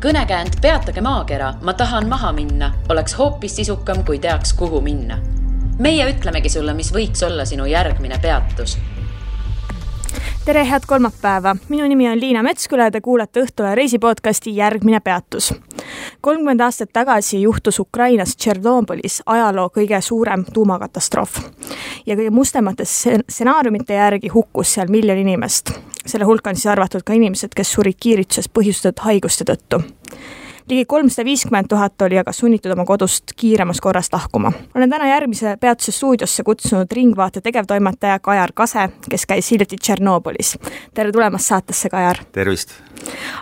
Kõnekäänd Peatage maakera, ma tahan maha minna, oleks hoopis sisukam, kui teaks, kuhu minna. Meie ütlemegi sulle, mis võiks olla sinu järgmine peatus. Tere, head kolmapäeva. Minu nimi on Liina Metsküla ja te kuulate Õhtule reisipodcasti Järgmine peatus. 30 aastat tagasi juhtus Ukrainas Tšernobõlis ajaloo kõige suurem tuumakatastroof. Ja kõige mustemate stsenaariumite järgi hukkus seal 1 miljon inimest. Selle hulka on siis arvatud ka inimesed, kes surid kiirituses põhjustatud haiguste tõttu. Ligi 350 000 oli aga sunnitud oma kodust kiiremas korras lahkuma. Olen täna Järgmise peatuse stuudiosse kutsunud Ringvaate tegevtoimetaja Kajar Kase, kes käis hiljuti Tšernobõlis. Tere tulemast saatesse, Kajar! Tervist!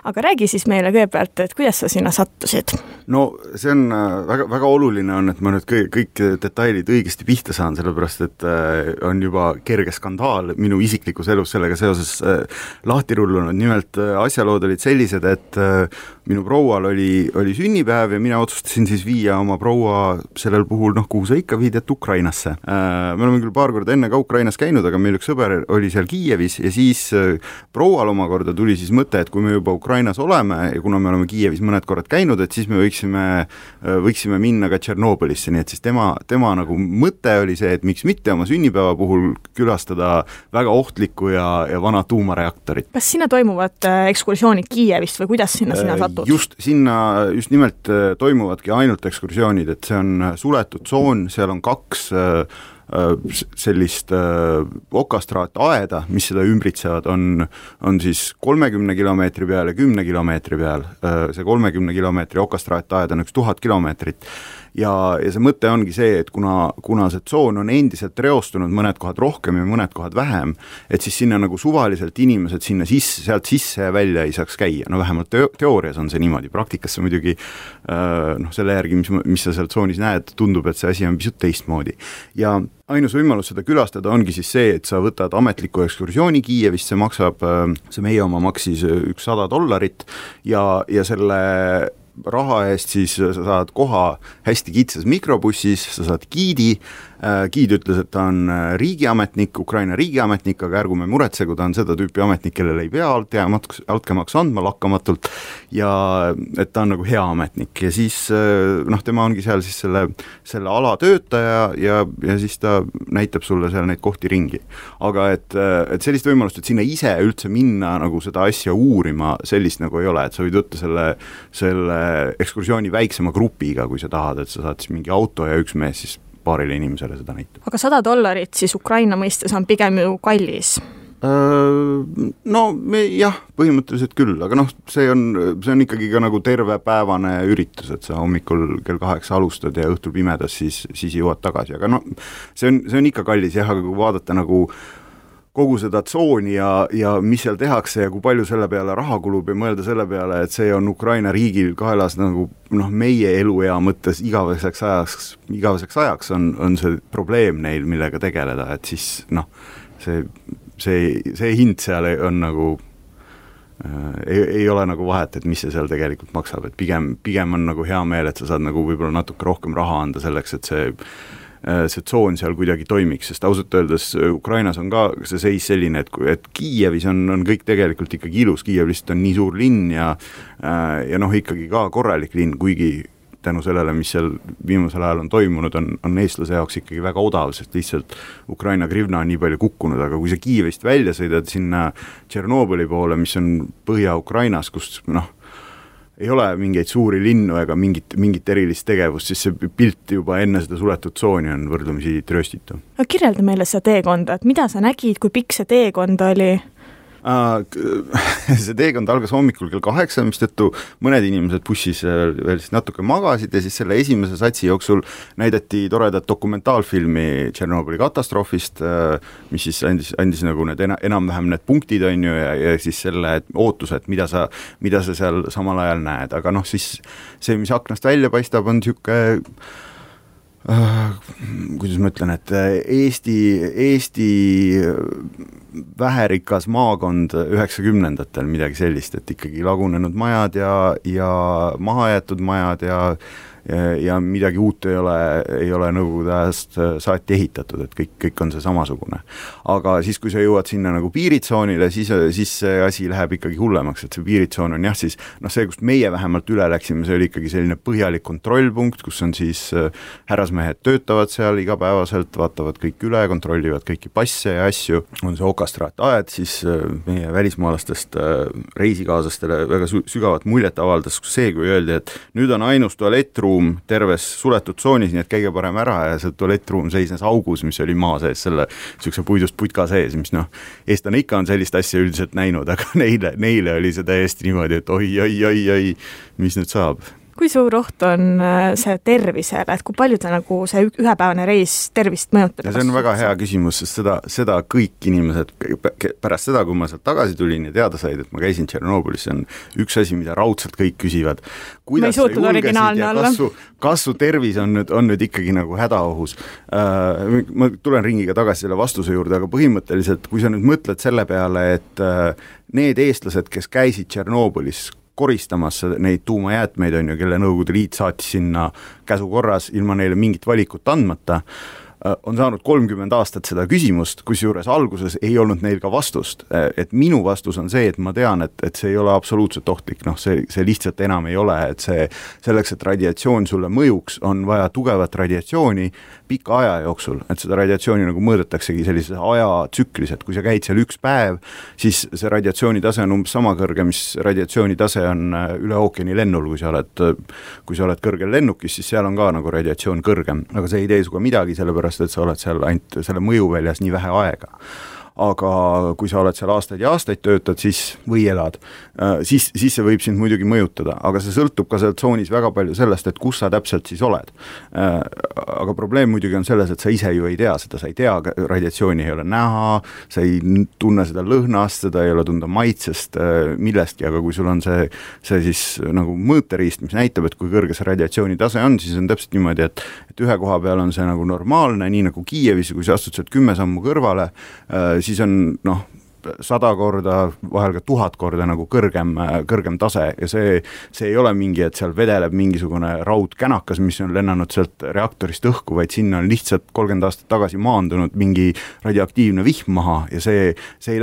Aga räägi siis meile kõigepealt, et kuidas sa sinna sattusid? No see on väga oluline on, et ma nüüd kõik detailid õigesti pihta saan, sellepärast et on juba kerge skandaal minu isiklikus elus sellega seoses lahti rullunud. Nimelt asjalood olid sellised, et minu proual oli sünnipäev ja mina otsustasin siis viia oma proua sellel puhul, kuhu sa ikka viid, et Ukrainasse. Me oleme küll paar korda enne ka Ukrainas käinud, aga meil üks sõber oli seal Kiievis ja siis proual omakorda tuli siis mõte, et kui me juba Ukrainas oleme ja kuna me oleme Kiievis mõned korrad käinud, et siis me võiksime minna ka Tšernobõlisse, nii et siis tema nagu mõte oli see, et miks mitte oma sünnipäeva puhul külastada väga ohtlikku ja vana tuumareaktorit. Kas sinna toimuvad ekskursioonid Kiievist või kuidas sinna satud? Just nimelt toimuvadki ainult ekskursioonid, et see on suletud tsoon, seal on 2 sellist okastraataeda, mis seda ümbritsevad, on siis 30 kilomeetri peal ja 10 kilomeetri peal. See 30 kilomeetri okastraataed on 1000 kilomeetrit. Ja see mõte ongi see, et kuna see tsoon on endiselt reostunud mõned kohad rohkem ja mõned kohad vähem, et siis sinna nagu suvaliselt inimesed sinna sealt sisse ja välja ei saaks käia. No vähemalt teoorias on see niimoodi. Praktikas see muidugi selle järgi, mis sa seal tsoonis näed, tundub, et see asi on pisut teistmoodi. Ja ainus võimalus seda külastada ongi siis see, et sa võtad ametliku ekskursiooni Kiievist, see meie oma maksis $100 ja selle raha eest siis sa saad koha hästi kitsas mikrobussis, sa saad giidi. Giid ütles, et ta on riigiametnik, Ukraina riigiametnik, aga ärgume muretse, kui ta on seda tüüpi ametnik, kellele ei pea altkäemaksu andma lakkamatult ja et ta on nagu hea ametnik ja siis tema ongi seal siis selle ala töötaja ja siis ta näitab sulle seal neid kohti ringi. Aga et sellist võimalust, et sinna ise üldse minna nagu seda asja uurima, sellist nagu ei ole, et sa võid võtta selle ekskursiooni väiksema grupiga, kui sa tahad, et sa saad siis mingi auto ja üks mees siis paarile inimesele seda näitab. Aga $100 siis Ukraina mõistes on pigem ju kallis? Jah, põhimõtteliselt küll, aga see on ikkagi ka nagu tervepäevane üritus, et sa hommikul kell 8 alustad ja õhtul pimedas siis jõuad tagasi, aga see on ikka kallis jah, aga kui vaadata nagu kogu seda tsooni ja mis seal tehakse ja kui palju selle peale raha kulub ja mõelda selle peale, et see on Ukraina riigil kaelas nagu meie eluea mõttes igaveseks ajaks on see probleem neil, millega tegeleda, et siis see hind seal on nagu ei ole nagu vahet, et mis see seal tegelikult maksab, et pigem on nagu hea meel, et sa saad nagu võib-olla natuke rohkem raha anda selleks, et see tsoon seal kuidagi toimiks, sest ausalt öeldes Ukrainas on ka see seis selline, et Kiievis on kõik tegelikult ikkagi ilus, Kiiev lihtsalt on nii suur linn ja ikkagi ka korralik linn, kuigi tänu sellele, mis seal viimasel ajal on toimunud, on eestlase jaoks ikkagi väga odav, sest lihtsalt Ukraina grivna on nii palju kukkunud, aga kui sa Kiievist välja sõidad sinna Tšernobõli poole, mis on Põhja-Ukrainas, kus ei ole mingeid suuri linnu ega mingit erilist tegevust, siis see pilt juba enne seda suletud tsooni on võrdlemisi trööstitu. Kirjelda meile seda teekonda, et mida sa nägid, kui pikk see teekond oli? See teekond algas hommikul kell 8, mistõttu mõned inimesed bussis veel siis natuke magasid ja siis selle esimese satsi jooksul näidati toredat dokumentaalfilmi Tšernobõli katastroofist, mis siis andis nagu need enam-vähem need punktid on ju ja siis selle ootused, mida sa seal samal ajal näed, aga siis see, mis aknast välja paistab, on siuke kuidas ma ütlen, et Eesti väherikas maakond 90-ndatel midagi sellist, et ikkagi lagunenud majad ja mahajäetud majad ja midagi uut ei ole Nõukogude ajast saati ehitatud, et kõik on see samasugune. Aga siis, kui sa jõuad sinna nagu piiritsoonile, siis see asi läheb ikkagi hullemaks, et see piiritsoon on jah siis, see, kust meie vähemalt üle läksime, see oli ikkagi selline põhjalik kontrollpunkt, kus on siis härrasmehed töötavad seal igapäevaselt, vaatavad kõik üle, kontrollivad kõiki passe ja asju, on see okastraataed, siis meie välismaalastest reisikaaslastele väga sügavat muljet avaldas see, kui öeldi, et nüüd on ainus tualettruum terves suletud tsoonis, nii et käige parem ära ja see tualettruum seisnes augus, mis oli maa sees, selle niisuguse puidust putka sees, mis eestlane ikka on sellist asja üldiselt näinud, aga neile oli see täiesti niimoodi, et oi, mis nüüd saab. Kui suur oht on see tervisele, et kui palju nagu see ühepäevane reis tervist mõjutab? Ja see on väga hea küsimus, sest seda kõik inimesed pärast seda, kui ma sealt tagasi tulin ja teada said, et ma käisin Tšernobõlis, see on üks asi, mida raudselt kõik küsivad. Ma ei suutnud originaalne olla. Kas su tervis on nüüd ikkagi nagu hädaohus? Ma tulen ringiga tagasi selle vastuse juurde, aga põhimõtteliselt, kui sa nüüd mõtled selle peale, et need eestlased, kes käisid Tšernobõlis koristamas neid tuumajäätmeid, kelle Nõukogude Liit saatis sinna käsukorras ilma neile mingit valikut andmata, on saanud 30 aastat seda küsimust, kusjuures alguses ei olnud neil ka vastust. Et minu vastus on see, et ma tean, et see ei ole absoluutselt ohtlik, see lihtsalt enam ei ole, et selleks, et radiatsioon sulle mõjuks, on vaja tugevat radiatsiooni pika aja jooksul, et seda radiatsiooni nagu mõõdetaksegi sellises ajatsüklis, et kui sa käid seal üks päev, siis see radiatsiooni tase on umbes sama kõrge, mis radiatsiooni tase on üle ookeani lennul, kui sa oled kõrgel lennukis, siis seal on ka nagu radiatsioon kõrgem, aga see ei tee suga midagi, sellepärast et sa oled seal ainult selle mõjuväljas nii vähe aega. Aga kui sa oled seal aastaid ja aastaid töötad või elad, siis see võib sind muidugi mõjutada, aga see sõltub ka seal tsoonis väga palju sellest, et kus sa täpselt siis oled. Aga probleem muidugi on selles, et sa ise ju ei tea seda, sa ei tea, radiatsiooni ei ole näha, sa ei tunne seda lõhnast, seda ei ole tunda maitsest, millestki, aga kui sul on see siis nagu mõõteriist, mis näitab, et kui kõrge see radiatsiooni tase on, siis on täpselt niimoodi, et ühe koha peal on see nagu normaalne, nii nagu Kiievis, kui sa astud sealt 10 sammu kõrvale, siis on 100 korda, vahel ka 1000 korda nagu kõrgem tase ja see ei ole mingi, et seal vedeleb mingisugune raudkänakas, mis on lennanud sealt reaktorist õhku, vaid sinna on lihtsalt 30 aastat tagasi maandunud mingi radioaktiivne vihm maha ja see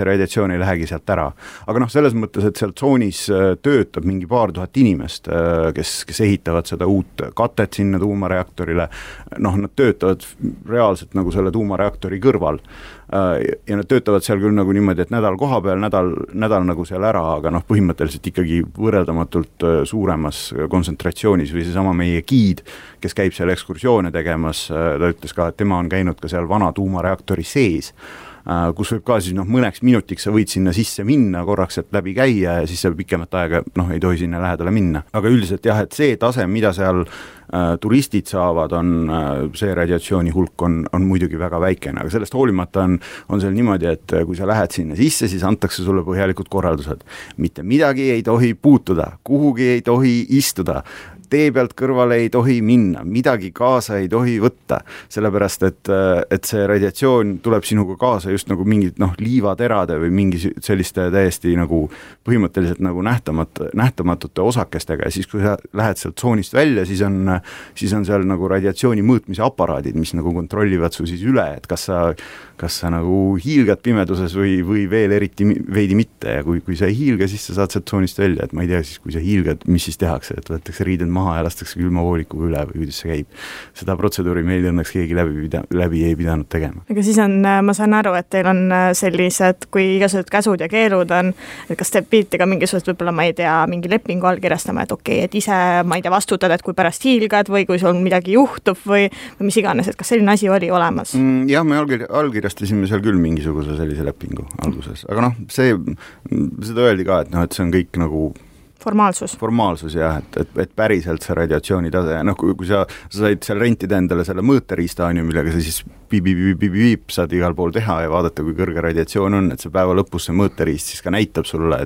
radiatsioon ei lähegi sealt ära. Aga selles mõttes, et seal tsoonis töötab mingi paar tuhat inimest, kes ehitavad seda uut katet sinna tuumareaktorile, nad töötavad reaalselt nagu selle tuumareaktori kõrval ja nad töötavad seal küll nagu niimoodi, et nädal koha peal, nädal nagu seal ära, aga põhimõtteliselt ikkagi võrreldamatult suuremas kontsentratsioonis või seesama meie giid, kes käib seal ekskursioone tegemas, ta ütles ka, et tema on käinud ka seal vana tuumareaktori sees, kus võib ka siis mõneks minutiks sa võid sinna sisse minna, korraks sealt läbi käia ja siis sa pikemat aega ei tohi sinna lähedale minna. Aga üldiselt jah, et see tase, mida seal turistid saavad, see radiatsiooni hulk on muidugi väga väikene, aga sellest hoolimata on seal niimoodi, et kui sa lähed sinna sisse, siis antakse sulle põhjalikud korraldused. Mitte midagi ei tohi puutuda, kuhugi ei tohi istuda, tee pealt kõrvale ei tohi minna, midagi kaasa ei tohi võtta, sellepärast et see radiatsioon tuleb sinuga kaasa just nagu mingid liivaterade või mingi selliste täiesti nagu põhimõtteliselt nagu nähtamatute osakestega ja siis kui sa lähed sealt tsoonist välja, siis on seal nagu radiatsiooni mõõtmise aparaadid, mis nagu kontrollivad su siis üle, et kas sa nagu hiilgad pimeduses või veel eriti veidi mitte ja kui sa ei hiilga, siis sa saad sealt tsoonist välja, et ma ei tea siis, kui sa hiilgad, mis siis tehakse, et võetakse riided maha ja lastakse külmavoolikuga üle või kuidas see käib. Seda protseduuri meil õnneks keegi läbi ei pidanud tegema. Aga siis ma saan aru, et teil on sellised, kui igasugused käsud ja keelud on, et kas te pidite ka mingisugust võib-olla, ma ei tea, mingi lepingu allkirjastama, et okei, et ise, ma ei tea, vastutad, et kui pärast hiilgad või kui sul midagi juhtub või mis iganes, et kas selline asi oli olemas? Jah, me allkirjastasime seal küll mingisuguse sellise lepingu alguses, aga seda öeldi ka, et see on kõik nagu formaalsus jah, et päriselt see radiatsiooni tase, kui sa said seal rentida endale selle mõõteriista, millega sa siis piip saad igal pool teha ja vaadata, kui kõrge radiatsioon on, et see päeva lõpus see mõõteriist siis ka näitab sulle,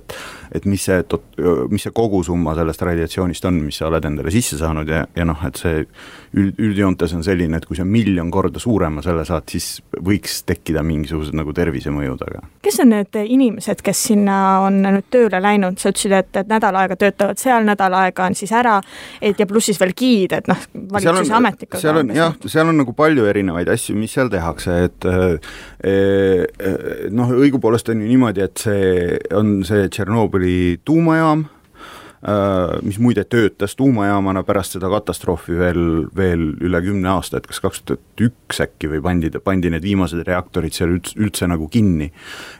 et mis see kogusumma sellest radiatsioonist on, mis sa oled endale sisse saanud ja et see üldjoontes on selline, et kui sa 1 000 000 korda suurema selle saad, siis võiks tekkida mingisugused nagu tervisemõjud, aga. Kes on need inimesed, kes sinna on nüüd tööle läinud? Sa ütlesid, et nädal aega, töötavad seal nädal aega, on siis ära, et ja pluss siis veel giid, et valitsuse ametnikud. Seal on nagu palju erinevaid asju, mis seal tehakse, et õigupoolest on ju niimoodi, et see on see Tšernobõli tuumajaam, mis muide töötas tuumajaamana pärast seda katastroofi veel üle 10 aasta, et kas 2001 äkki või pandi need viimased reaktorid seal üldse nagu kinni.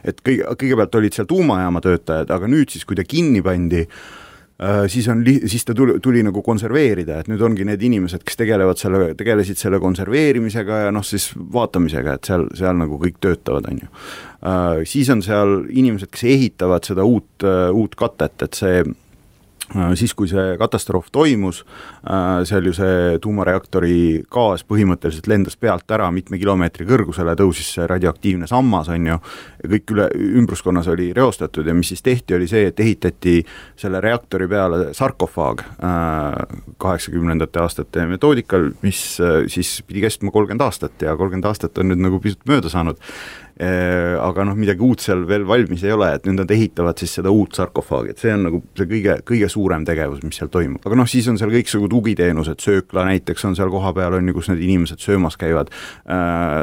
Et kõigepealt olid seal tuumajaama töötajad, aga nüüd siis, kui ta kinni pandi, siis ta tuli nagu konserveerida, et nüüd ongi need inimesed, kes tegelesid selle konserveerimisega ja siis vaatamisega, et seal nagu kõik töötavad, on ju. Siis on seal inimesed, kes ehitavad seda uut katet, et siis, kui see katastroof toimus, seal ju see tuumareaktori gaas põhimõtteliselt lendas pealt ära mitme kilomeetri kõrgusele, tõusis see radioaktiivne sammas, on ju, ja kõik ümbruskonnas oli reostatud ja mis siis tehti, oli see, et ehitati selle reaktori peale sarkofaag 80. aastate metoodikal, mis siis pidi kestma 30 aastat ja 30 aastat on nüüd nagu pisut mööda saanud. Aga midagi uut seal veel valmis ei ole, et nüüd nad ehitavad siis seda uut sarkofaagi, et see on nagu see kõige suurem tegevus, mis seal toimub. Aga siis on seal kõiksugu tugiteenused, söökla näiteks on seal koha peal, on ju, kus need inimesed söömas käivad.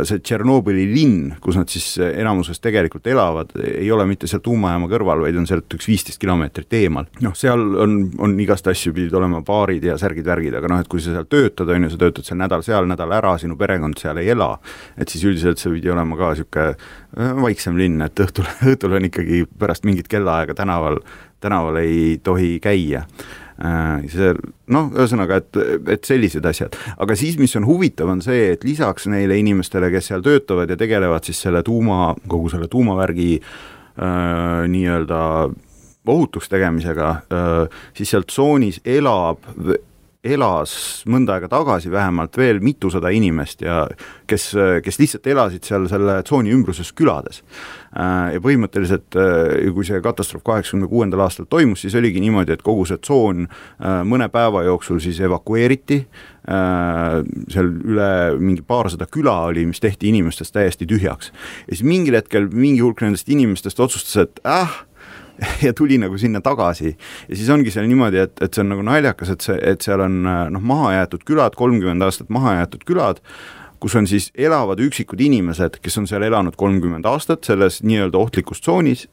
See Tšernobõli linn, kus nad siis enamuses tegelikult elavad, ei ole mitte seal tuumajaama kõrval, vaid on sealt üks 15 kilomeetrit eemal. Seal on igast asju, pidid olema baarid ja särgid-värgid, aga et kui sa seal töötad, on ju, sa töötad seal nädal ära, sinu perekond seal ei ela, et siis üldiselt see pidi olema ka siuke vaiksem linn, et õhtul on ikkagi pärast mingit kellaaega tänaval ei tohi käia. Ühesõnaga, et sellised asjad. Aga siis, mis on huvitav, on see, et lisaks neile inimestele, kes seal töötavad ja tegelevad siis kogu selle tuumavärgi nii-öelda ohutuks tegemisega, siis seal tsoonis elas mõnda aega tagasi vähemalt veel mitusada inimest ja kes lihtsalt elasid seal selle tsooni ümbruses külades. Ja põhimõtteliselt, kui see katastroof 86. aastal toimus, siis oligi niimoodi, et kogu see tsoon mõne päeva jooksul siis evakueeriti, seal üle mingi paarsada küla oli, mis tehti inimestest täiesti tühjaks. Ja siis mingil hetkel mingi hulk nendest inimestest otsustas, et ja tuli nagu sinna tagasi ja siis ongi seal niimoodi, et see on nagu naljakas, et seal on maha jäetud külad, 30 aastat maha jäetud külad, kus on siis elavad üksikud inimesed, kes on seal elanud 30 aastat selles nii-öelda ohtlikus tsoonis,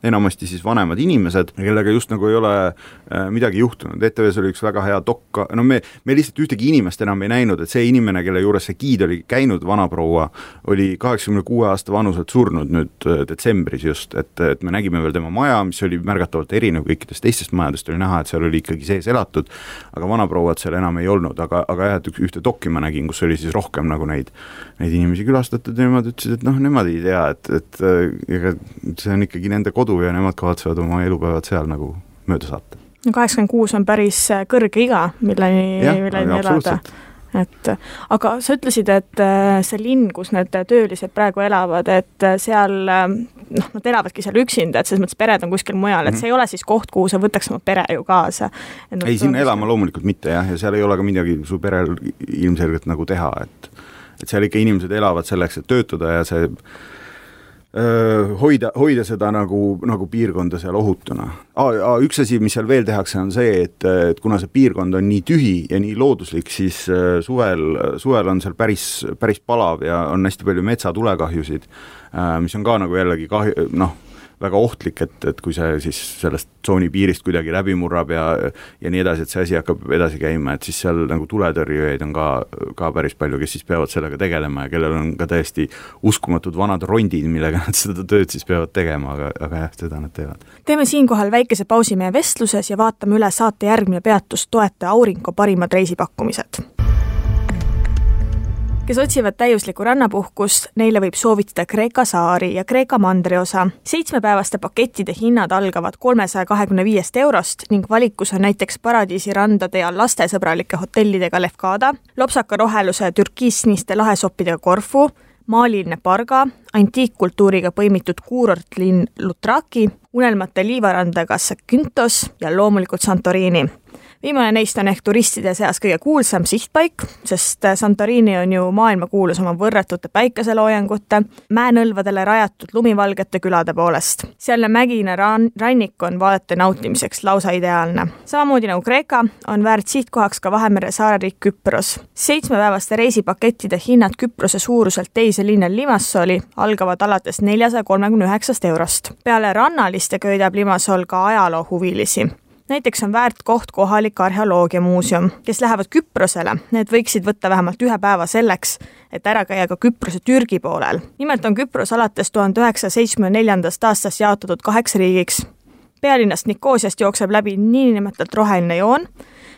enamasti siis vanemad inimesed, kellega just nagu ei ole midagi juhtunud. ETV-s oli üks väga hea dokka, me lihtsalt ühtegi inimest enam ei näinud, et see inimene, kelle juures see giid oli käinud, vanaproua, oli 86 aasta vanuselt surnud nüüd detsembris just, et me nägime veel tema maja, mis oli märgatavalt erinev kõikidest teistest majadest, oli näha, et seal oli ikkagi sees elatud, aga vanaprouad seal enam ei olnud, aga jah, et ühte dokki ma nägin, kus oli siis rohkem nagu neid inimesi külastatud ja nemad ütlesid, et nemad ei tea, et see on ikkagi nende kodu ja nemad kavatsevad oma elupäevad seal nagu mööda saata. 86 on päris kõrge iga, milleni elada. Aga sa ütlesid, et see linn, kus need töölised praegu elavad, et seal nad elavadki seal üksinda, et selles mõttes pered on kuskil mujal, et see ei ole siis koht, kuhu sa võtaks oma pere ju kaasa. Ei, siin elama loomulikult mitte ja seal ei ole ka midagi su perel ilmselgelt nagu teha, et seal ikka inimesed elavad selleks, et töötada ja see hoida seda nagu piirkonda seal ohutuna. Üks asi, mis seal veel tehakse, on see, et kuna see piirkond on nii tühi ja nii looduslik, siis suvel on seal päris palav ja on hästi palju metsatulekahjusid, mis on ka nagu jällegi väga ohtlik, et kui see siis sellest tsooni piirist kuidagi läbi murrab ja nii edasi, et see asi hakkab edasi käima, et siis seal nagu tuletõrjujaid on ka päris palju, kes siis peavad sellega tegelema ja kellel on ka täiesti uskumatud vanad rondid, millega nad seda tööd siis peavad tegema, aga jah, seda nad teevad. Teeme siinkohal väikese pausi meie vestluses ja vaatame üle saate järgmine peatus toetaja Aurinko parimad reisipakkumised. Kes otsivad täiuslikku rannapuhkust, neile võib soovitada Kreeka saari ja Kreeka mandriosa. 7-päevaste pakettide hinnad algavad 325 eurost ning valikus on näiteks paradiisi randade ja lastesõbralike hotellidega Lefkada, lopsaka roheluse türkiisniste lahesoppidega Korfu, maaliline Parga, antiikkultuuriga põimitud kuurortlinn Lutraki, unelmate liivarandaga Zakynthos ja loomulikult Santorini. Viimane neist on ehk turistide seas kõige kuulsam sihtpaik, sest Santorini on ju maailmakuulus oma võrratute päikeseloojangute, mäenõlvadele rajatud lumivalgete külade poolest. Sealne mägine rannik on vaadete nautimiseks lausa ideaalne. Samamoodi nagu Kreeka on väärt sihtkohaks ka Vahemere saareriik Küpros. 7-päevaste reisipakettide hinnad Küprose suuruselt teise linnal Limassoli algavad alates 439 eurost. Peale rannaliste köidab Limassol ka ajaloohuvilisi. Näiteks on väärt koht kohalik arheoloogiamuuseum, kes lähevad Küprosele. Need võiksid võtta vähemalt 1 päeva selleks, et ära käia ka Küprose Türgi poolel. Nimelt on Küpros alates 1974. aastast jaotatud 8 riigiks. Pealinnast Nikosiast jookseb läbi niinimetatult roheline joon,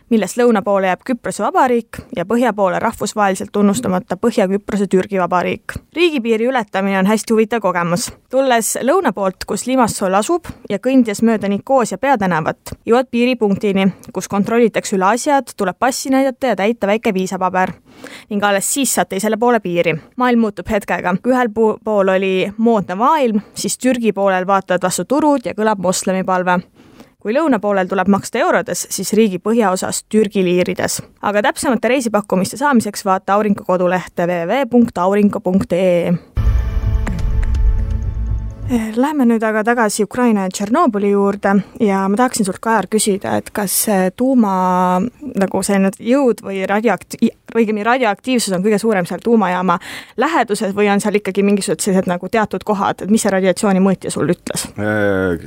millest lõuna poole jääb Küprose vabariik ja põhja poole rahvusvaheliselt tunnustamata Põhja-Küprose Türgi vabariik. Riigipiiri ületamine on hästi huvitav kogemus. Tulles lõuna poolt, kus Limassol asub ja kõndies mööda Nikosia peatänavat, jõuad piiripunktini, kus kontrollitakse üle asjad, tuleb passi näidata ja täita väike viisapaber. Ning alles siis saad teisele poole piiri. Maailm muutub hetkega. Kui ühel pool oli moodne maailm, siis Türgi poolel vaatavad vastu turud ja kõlab moslemipalve. Kui lõuna poolel tuleb maksta eurodes, siis riigi põhjaosas Türgi liirides. Aga täpsemate reisipakkumiste saamiseks vaata Aurinko kodulehte www.aurinko.ee. Läheme nüüd aga tagasi Ukraina ja Tšernobõli juurde ja ma tahaksin sult, Kajar, küsida, et kas tuuma nagu selline jõud või radioaktiivsus on kõige suurem seal tuumajaama läheduses või on seal ikkagi mingisugused sellised nagu teatud kohad, et mis see radiatsiooni mõõtja sul ütles?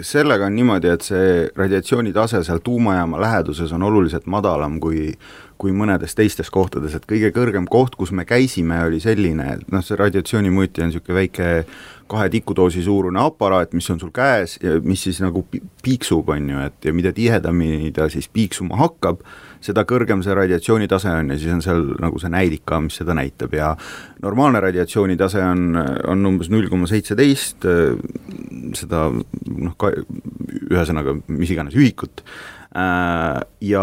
Sellega on niimoodi, et see radiatsiooni tase seal tuumajaama läheduses on oluliselt madalam kui mõnedes teistes kohtades, et kõige kõrgem koht, kus me käisime, oli selline, et see radiatsiooni mõõtja on niisugune väike 2 tikudoosi suurune aparaat, mis on sul käes ja mis siis nagu piiksub, on ju, et ja mida tihedamini ta siis piiksuma hakkab, seda kõrgem see radiatsioonitase on ja siis on seal nagu see näidik ka, mis seda näitab ja normaalne radiatsioonitase on umbes 0,17, seda ühesõnaga mis iganes ühikut. Ja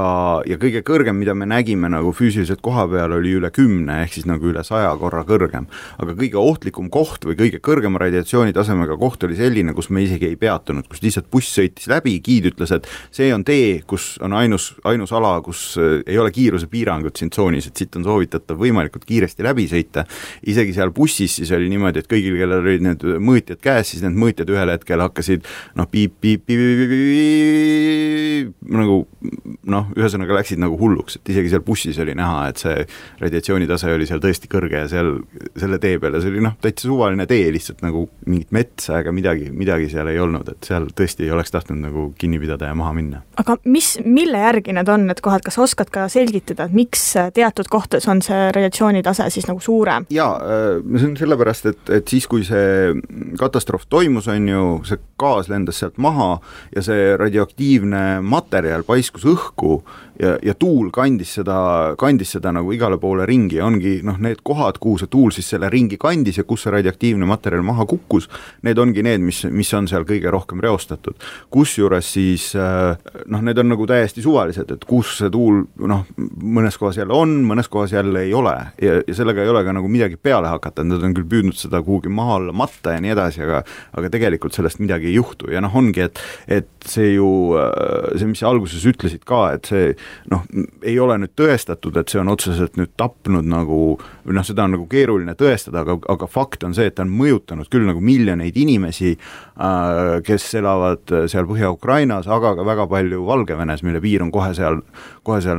kõige kõrgem, mida me nägime nagu füüsiliselt koha peal, oli üle 10, ehk siis nagu üle 100 korra kõrgem. Aga kõige ohtlikum koht või kõige kõrgema radiatsioonitasemega koht oli selline, kus me isegi ei peatunud, kus lihtsalt buss sõitis läbi, giid ütles, et see on tee, kus on ainus ala, kus ei ole kiirusepiirangut siin tsoonis, et siit on soovitatav võimalikult kiiresti läbi sõita. Isegi seal bussis siis oli niimoodi, et kõigil, kellel olid need mõõtjad käes, siis need mõõtjad ühel hetkel hakkasid ühesõnaga läksid nagu hulluks, et isegi seal bussis oli näha, et see radiatsioonitase oli seal tõesti kõrge ja seal selle tee peale, see oli täitsa suvaline tee, lihtsalt nagu mingit metsa, aga midagi seal ei olnud, et seal tõesti ei oleks tahtnud nagu kinni pidada ja maha minna. Aga mille järgi need on need kohad, kas oskad ka selgitada, et miks teatud kohtades on see radiatsioonitase siis nagu suurem? Jaa, see on sellepärast, et siis kui see katastroof toimus, on ju, see gaas lendas sealt maha ja see radioaktiivne materjal paiskus õhku ja tuul kandis seda nagu igale poole ringi ja ongi need kohad, kuhu see tuul siis selle ringi kandis ja kus see radioaktiivne materjal maha kukkus, need ongi need, mis on seal kõige rohkem reostatud. Kusjuures siis need on nagu täiesti suvalised, et kus see tuul mõnes kohas jälle on, mõnes kohas jälle ei ole ja sellega ei ole ka nagu midagi peale hakata, nad on küll püüdnud seda kuhugi maha alla matta ja nii edasi, aga tegelikult sellest midagi ei juhtu ja ongi, et see ju, see mis alguses ütlesid ka, et see ei ole nüüd tõestatud, et see on otseselt nüüd tapnud nagu, seda on nagu keeruline tõestada, aga fakt on see, et ta on mõjutanud küll nagu miljoneid inimesi, kes elavad seal Põhja-Ukrainas, aga ka väga palju Valgevenes, mille piir on kohe seal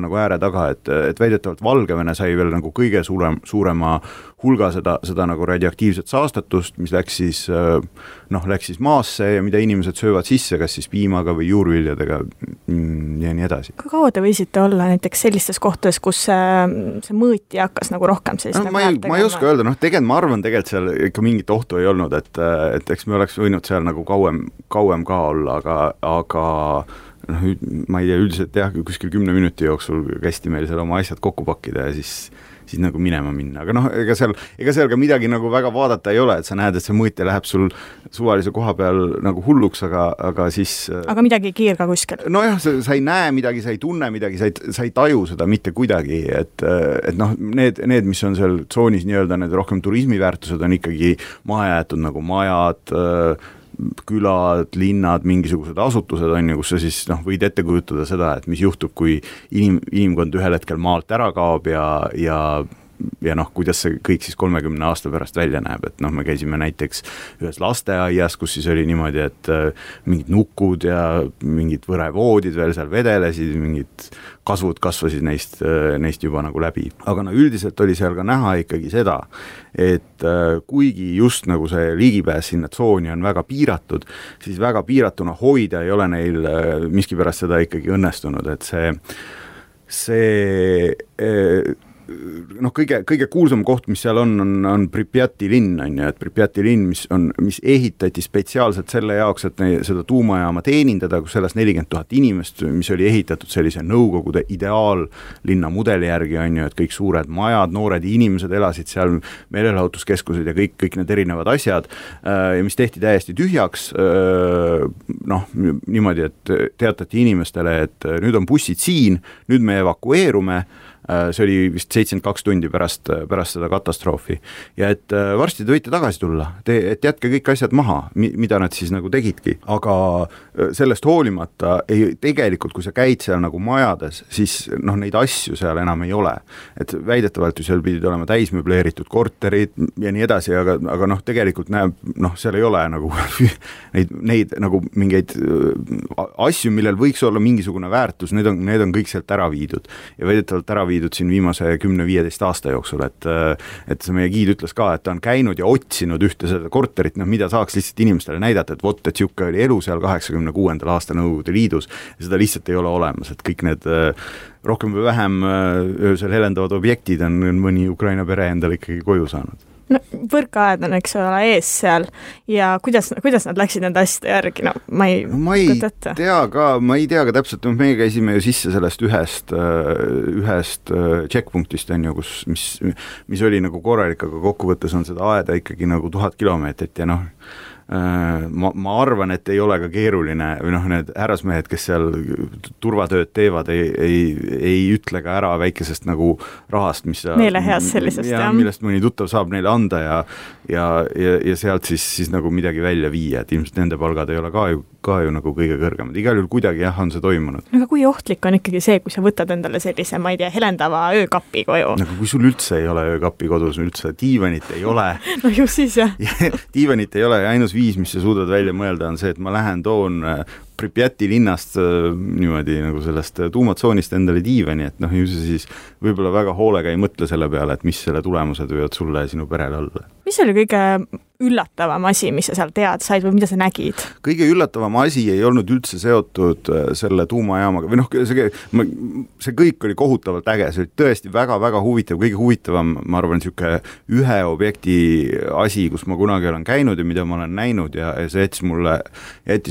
nagu ääre taga, et väidetavalt Valgevene sai veel nagu kõige suurema hulga seda nagu radioaktiivset saastatust, mis läks siis maasse ja mida inimesed söövad sisse, kas siis piimaga või juurviljadega ja nii edasi. Kui kaua te võisite olla näiteks sellistes kohtades, kus see mõõti hakkas nagu rohkem sellist ma ei oska öelda, ma arvan tegelikult seal ikka mingit ohtu ei olnud, et eks me oleks võinud seal nagu kauem ka olla, aga ma ei tea, üldiselt jah, kuskil 10 minuti jooksul kästi meil seal oma asjad kokku pakkida ja siis nagu minema minna, aga ega seal ka midagi nagu väga vaadata ei ole, et sa näed, et see mõõtja läheb sul suvalise koha peal nagu hulluks, aga siis aga midagi ei kiirga kuskil? Nojah, sa ei näe midagi, sa ei tunne midagi, sa ei taju seda mitte kuidagi, et need, mis on seal tsoonis nii-öelda need rohkem turismiväärtused on ikkagi maha jäetud nagu majad, külad, linnad, mingisugused asutused on ju, kus sa siis võid ette kujutada seda, et mis juhtub, kui inimkond ühel hetkel maalt ära kaob ja kuidas see kõik siis 30 aasta pärast välja näeb, et me käisime näiteks ühes lasteaias, kus siis oli niimoodi, et mingid nukud ja mingid võrevoodid veel seal vedelesid, mingid kasvud kasvasid neist juba nagu läbi. Aga üldiselt oli seal ka näha ikkagi seda, et kuigi just nagu see ligipääs sinna tsooni on väga piiratud, siis väga piiratuna hoida ei ole neil miskipärast seda ikkagi õnnestunud, et see kõige kuulsam koht, mis seal on Pripjati linn, on ju, et Pripjati linn, mis ehitati spetsiaalselt selle jaoks, et seda tuumajaama teenindada, kus elas 40 000 inimest, mis oli ehitatud sellise Nõukogude ideaallinna mudeli järgi, on ju, et kõik suured majad, noored inimesed elasid seal, meelelahutuskeskused ja kõik need erinevad asjad, mis tehti täiesti tühjaks, niimoodi, et teatati inimestele, et nüüd on bussid siin, nüüd me evakueerume, see oli vist 72 tundi pärast seda katastroofi ja et varsti te võite tagasi tulla, et jätke kõik asjad maha, mida nad siis nagu tegidki, aga sellest hoolimata tegelikult, kui sa käid seal nagu majades, siis neid asju seal enam ei ole, et väidetavalt ju seal pidid olema täismöbleeritud korterid ja nii edasi, aga tegelikult näeb, seal ei ole nagu neid nagu mingeid asju, millel võiks olla mingisugune väärtus, need on kõik sealt ära viidud ja väidetavalt ära viidud siin viimase 10-15 aasta jooksul, et see meie giid ütles ka, et ta on käinud ja otsinud ühte seda korterit, mida saaks lihtsalt inimestele näidata, et vot, et siuke oli elu seal 86. aasta Nõukogude Liidus ja seda lihtsalt ei ole olemas, et kõik need rohkem või vähem öösel helendavad objektid on mõni Ukraina pere endale ikkagi koju saanud. Võrkaed on, eks ole, ees seal ja kuidas nad läksid nende asjade järgi, ma ei tea ka täpselt, meie käisime ju sisse sellest ühest checkpunktist, on ju, mis oli nagu korralik, aga kokkuvõttes on seda aeda ikkagi nagu 1000 kilomeetrit ja ma arvan, et ei ole ka keeruline või need härrasmehed, kes seal turvatööd teevad, ei ütle ka ära väikesest nagu rahast, mis meeleheast sellisest, millest mõni tuttav saab neile anda ja sealt siis nagu midagi välja viia, et ilmselt nende palgad ei ole ka ju nagu kõige kõrgemad, igal juhul kuidagi on see toimunud. Aga kui ohtlik on ikkagi see, kui sa võtad endale sellise, ma ei tea, helendava öökapi koju? Nagu kui sul üldse ei ole öökapi kodus, üldse diivanit ei ole. No ju siis jah. Diivanit ei ole ja ainus viis, mis sa suudad välja mõelda, on see, et ma toon Pripjati linnast niimoodi nagu sellest tuumatsoonist endale diivani, et ju see siis võib-olla väga hoolega ei mõtle selle peale, et mis selle tulemused võivad sulle ja sinu perele olla. Mis oli kõige üllatavam asi, mis sa seal teada said või mida sa nägid? Kõige üllatavam asi ei olnud üldse seotud selle tuumajaamaga või see kõik oli kohutavalt äge, see oli tõesti väga-väga huvitav, kõige huvitavam, ma arvan, niisugune ühe objekti asi, kus ma kunagi olen käinud ja mida ma olen näinud ja see jättis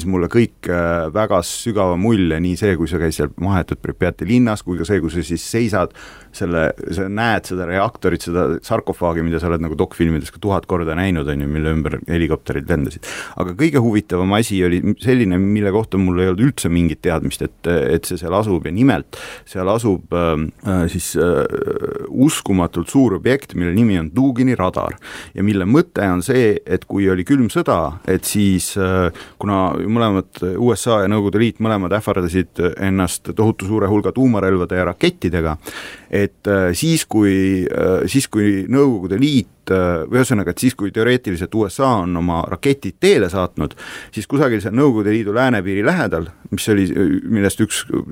mulle kõik väga sügava mulje, nii see, kui sa käid seal mahetud Pripjati linnas, kui ka see, kui sa siis seisad, sa näed seda reaktorit, seda sarkofaagi, mida sa oled nagu dokfilmides ka 1000 korda näinud, on ju, mille ümber helikopterid lendasid. Aga kõige huvitavam asi oli selline, mille kohta mul ei olnud üldse mingit teadmist, et see seal asub ja nimelt seal asub uskumatult suur objekt, mille nimi on Dugini radar ja mille mõte on see, et kui oli külm sõda, et siis kuna mõlemad USA ja Nõukogude Liit mõlemad ähvardasid ennast tohutu suure hulga tuumarelvade ja rakettidega, et siis kui Nõukogude Liit või ühesõnaga, et siis kui teoreetiliselt USA on oma raketid teele saatnud, siis kusagil seal Nõukogude Liidu läänepiiri lähedal, millest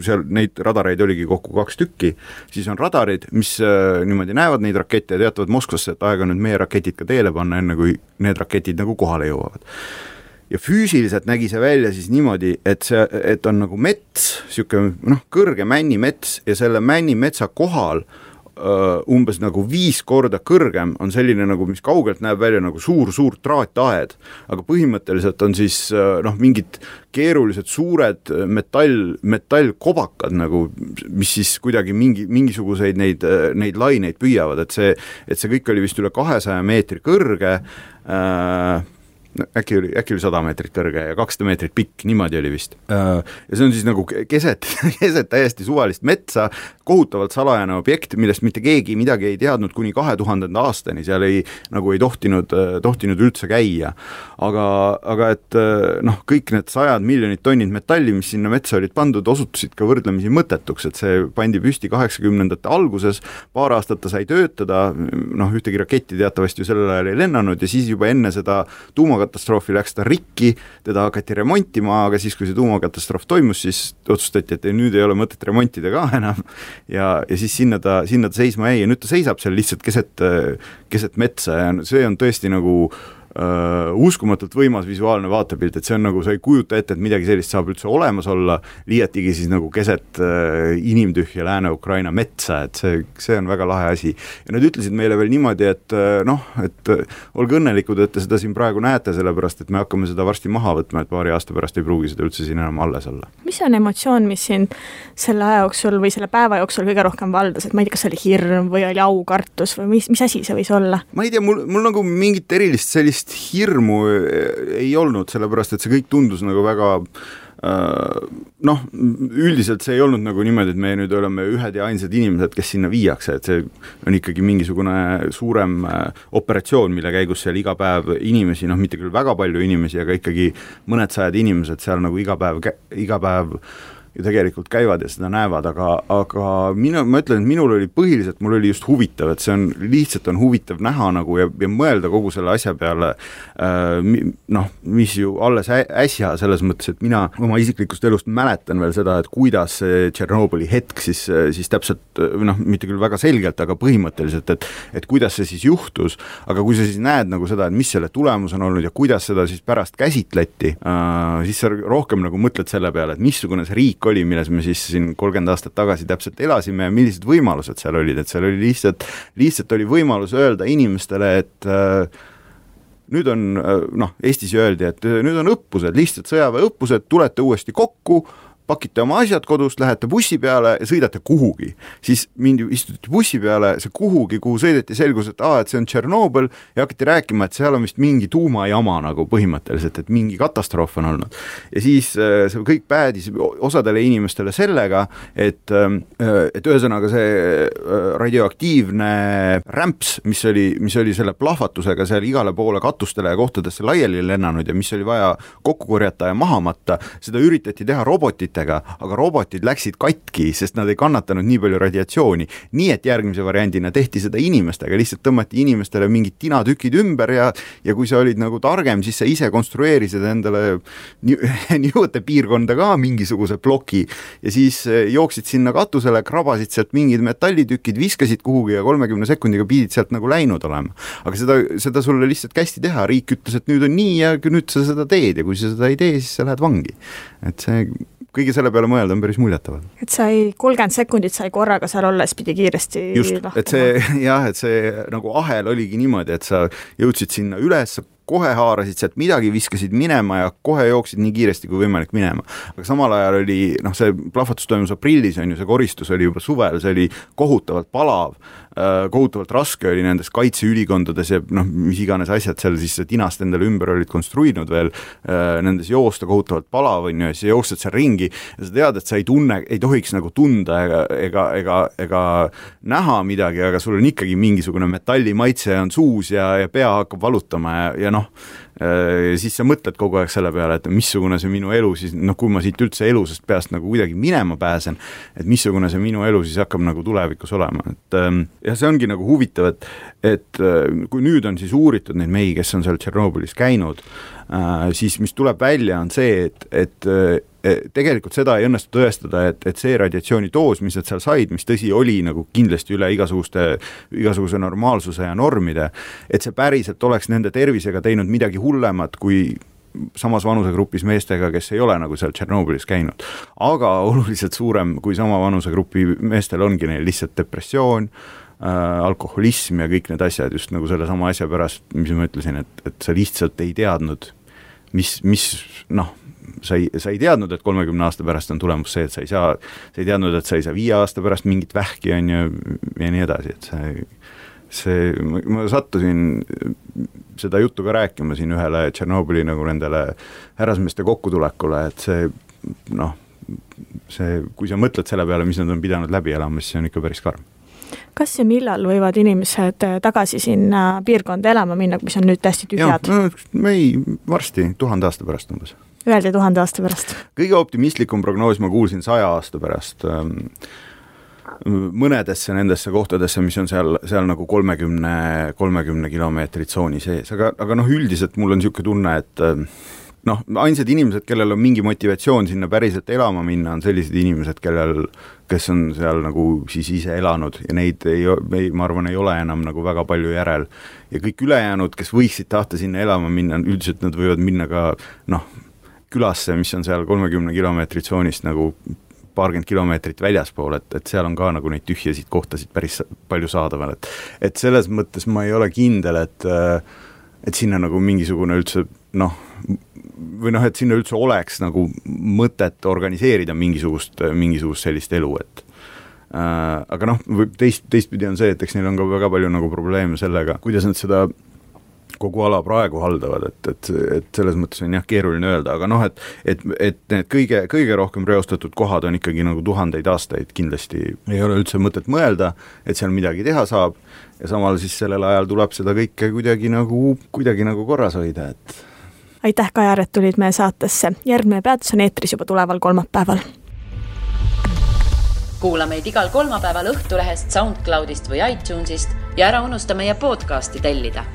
seal neid radareid oligi kokku 2 tükki, siis on radarid, mis niimoodi näevad neid rakette ja teatavad Moskvasse, et aega nüüd meie raketid ka teele panna, enne kui need raketid nagu kohale jõuavad. Ja füüsiliselt nägi see välja siis niimoodi, et on nagu mets, siuke kõrge männimets ja selle männimetsa kohal umbes nagu 5 korda kõrgem on selline nagu, mis kaugelt näeb välja nagu suur traataed, aga põhimõtteliselt on siis mingid keerulised suured metallkobakad nagu, mis siis kuidagi mingisuguseid neid laineid püüavad, et see kõik oli vist üle 200 meetri kõrge, äkki oli 100 meetrit kõrge ja 200 meetrit pikk, niimoodi oli vist. Ja see on siis nagu keset täiesti suvalist metsa, kohutavalt salajane objekt, millest mitte keegi midagi ei teadnud kuni 2000. aastani, seal ei tohtinud üldse käia. Aga et kõik need 100 miljonit tonnid metalli, mis sinna metsa olid pandud, osutusid ka võrdlemisi mõttetuks, et see pandi püsti 80ndate alguses, paar aastat ta sai töötada, ühtegi raketti teatavasti ju sellel ajal ei lennanud ja siis juba enne seda tuumakatastroofi läks ta rikki, teda hakati remontima, aga siis, kui see tuumakatastroof toimus, siis otsustati, et nüüd ei ole mõtet remontida ka enam ja siis sinna ta seisma jäi ja nüüd ta seisab seal lihtsalt keset metsa ja see on tõesti nagu uskumatult võimas visuaalne vaatepilt, et see on nagu, sa ei kujuta ette, et midagi sellist saab üldse olemas olla, liiatigi siis nagu keset inimtühja Lääne-Ukraina metsa, et see on väga lahe asi. Ja nad ütlesid meile veel niimoodi, et olge õnnelikud, et te seda siin praegu näete, sellepärast, et me hakkame seda varsti maha võtma, et paari aasta pärast ei pruugi seda üldse siin enam alles olla. Mis on emotsioon, mis siin selle aja jooksul või selle päeva jooksul kõige rohkem valdas, et ma ei tea, kas oli hirm või oli aukartus või mis asi see võis olla? Ma ei tea, mul nagu mingit erilist sellist hirmu ei olnud, sellepärast, et see kõik tundus nagu väga üldiselt see ei olnud nagu niimoodi, et me nüüd oleme ühed ja ainsad inimesed, kes sinna viiakse, et see on ikkagi mingisugune suurem operatsioon, mille käigus seal iga päev inimesi, mitte küll väga palju inimesi, aga ikkagi mõned sajad inimesed seal nagu iga päev ju tegelikult käivad ja seda näevad, aga ma ütlen, et minul oli põhiliselt, mul oli just huvitav, et see on lihtsalt huvitav näha nagu ja mõelda kogu selle asja peale, mis ju alles äsja selles mõttes, et mina oma isiklikust elust mäletan veel seda, et kuidas see Tšernobõli hetk siis täpselt, mitte küll väga selgelt, aga põhimõtteliselt, et kuidas see siis juhtus, aga kui sa siis näed nagu seda, et mis selle tulemus on olnud ja kuidas seda siis pärast käsitleti, siis sa rohkem nagu mõtled selle peale, et missugune see riik oli, milles me siis siin 30 aastat tagasi täpselt elasime ja millised võimalused seal olid, et seal oli lihtsalt oli võimalus öelda inimestele, et nüüd on, Eestis öeldi, et nüüd on õppused, lihtsalt sõjaväeõppused, tulete uuesti kokku, pakite oma asjad kodust, lähete bussi peale ja sõidate kuhugi. Siis istuti bussi peale, see kuhugi, kuhu sõideti, selgus, et see on Tšernobõl ja hakati rääkima, et seal on vist mingi tuumajama nagu põhimõtteliselt, et mingi katastroof on olnud. Ja siis see kõik päädis osadele inimestele sellega, et ühesõnaga see radioaktiivne rämps, mis oli selle plahvatusega seal igale poole katustele ja kohtadesse laiali lennanud ja mis oli vaja kokku korjata ja maha matta, seda üritati teha aga robotid läksid katki, sest nad ei kannatanud nii palju radiatsiooni. Nii et järgmise variandina tehti seda inimestega, lihtsalt tõmmati inimestele mingid tinatükid ümber ja kui sa olid nagu targem, siis sa ise konstrueerisid endale niivõte piirkonda ka mingisuguse ploki ja siis jooksid sinna katusele, krabasid sealt mingid metallitükid, viskasid kuhugi ja 30 sekundiga pidid sealt nagu läinud olema. Aga seda sulle lihtsalt kästi teha, riik ütles, et nüüd on nii ja nüüd sa seda teed ja kui sa seda ei tee, siis sa lähed vangi. Et see kõige selle peale mõelda on päris muljetaval. Et sai 30 sekundit sai korraga seal olles pidi kiiresti just, et see nagu ahel oligi niimoodi, et sa jõudsid sinna üles, kohe haarasid sealt midagi, viskasid minema ja kohe jooksid nii kiiresti kui võimalik minema. Aga samal ajal oli, see plahvatus toimus aprillis, see koristus oli juba suvel, see oli kohutavalt palav, kohutavalt raske oli nendes kaitseülikondades ja mis iganes asjad seal siis tinast endale ümber olid konstruinud veel, nendes joosta kohutavalt palav on ju, ja siis jooksed seal ringi ja sa tead, et sa ei tohiks nagu tunda ega näha midagi, aga sul on ikkagi mingisugune metallimaitse on suus ja pea hakkab valutama ja siis sa mõtled kogu aeg selle peale, et missugune see minu elu siis, kui ma siit üldse elusest peast nagu kuidagi minema pääsen, et missugune see minu elu siis hakkab nagu tulevikus olema. Ja see ongi nagu huvitav, et kui nüüd on siis uuritud neid mehi, kes on seal Tšernobõlis käinud, siis mis tuleb välja on see, et tegelikult seda ei õnnestu tõestada, et see radiatsioonidoos, mis nad seal said, mis tõsi oli nagu kindlasti üle igasuguse normaalsuse ja normide, et see päriselt oleks nende tervisega teinud midagi hullemat kui samas vanusegrupis meestega, kes ei ole nagu seal Tšernobõlis käinud. Aga oluliselt suurem kui sama vanusegrupi meestel ongi neil lihtsalt depressioon, alkoholism ja kõik need asjad just nagu selle sama asja pärast, mis ma ütlesin, et sa lihtsalt ei teadnud, sa ei teadnud, et 30 aasta pärast on tulemus see, et sa ei teadnud, et sa ei saa 5 aasta pärast mingit vähki on ja nii edasi, et ma sattusin seda juttu ka rääkima siin ühele Tšernobõli nagu nendele härrasmeeste kokkutulekule, et kui sa mõtled selle peale, mis nad on pidanud läbi elama, siis see on ikka päris karm. Kas ja millal võivad inimesed tagasi sinna piirkonda elama minna, mis on nüüd täiesti tühjad? Varsti 1000 aasta pärast umbes. Öeldi 1000 aasta pärast. Kõige optimistlikum prognoos ma kuulsin 100 aasta pärast mõnedesse nendesse kohtadesse, mis on seal nagu 30 kilomeetrit tsooni sees, aga üldiselt mul on niisugune tunne, et ainsad inimesed, kellel on mingi motivatsioon sinna päriselt elama minna, on sellised inimesed, kes on seal nagu siis ise elanud ja neid ma arvan, ei ole enam nagu väga palju järel. Ja kõik ülejäänud, kes võiksid tahta sinna elama minna, üldiselt nad võivad minna ka külasse, mis on seal 30 kilomeetrit tsoonist nagu paarkümmend kilomeetrit väljaspool, et seal on ka nagu neid tühjasid kohtasid päris palju saadaval. Et selles mõttes ma ei ole kindel, et sinna nagu mingisugune üldse et sinna üldse oleks nagu mõtet organiseerida mingisugust sellist elu, aga teistpidi on see, et eks neil on ka väga palju nagu probleeme sellega, kuidas nad seda kogu ala praegu haldavad, et selles mõttes on keeruline öelda, aga et need kõige rohkem reostatud kohad on ikkagi nagu 1000 aastaid, kindlasti ei ole üldse mõtet mõelda, et seal midagi teha saab ja samal siis sellel ajal tuleb seda kõike kuidagi nagu korras hoida, et aitäh, Kajar, et tulid meie saatesse. Järgmine peatus on eetris juba tuleval kolmapäeval. Kuula meid igal kolmapäeval Õhtulehest, SoundCloudist või iTunesist ja ära unusta meie podcasti tellida.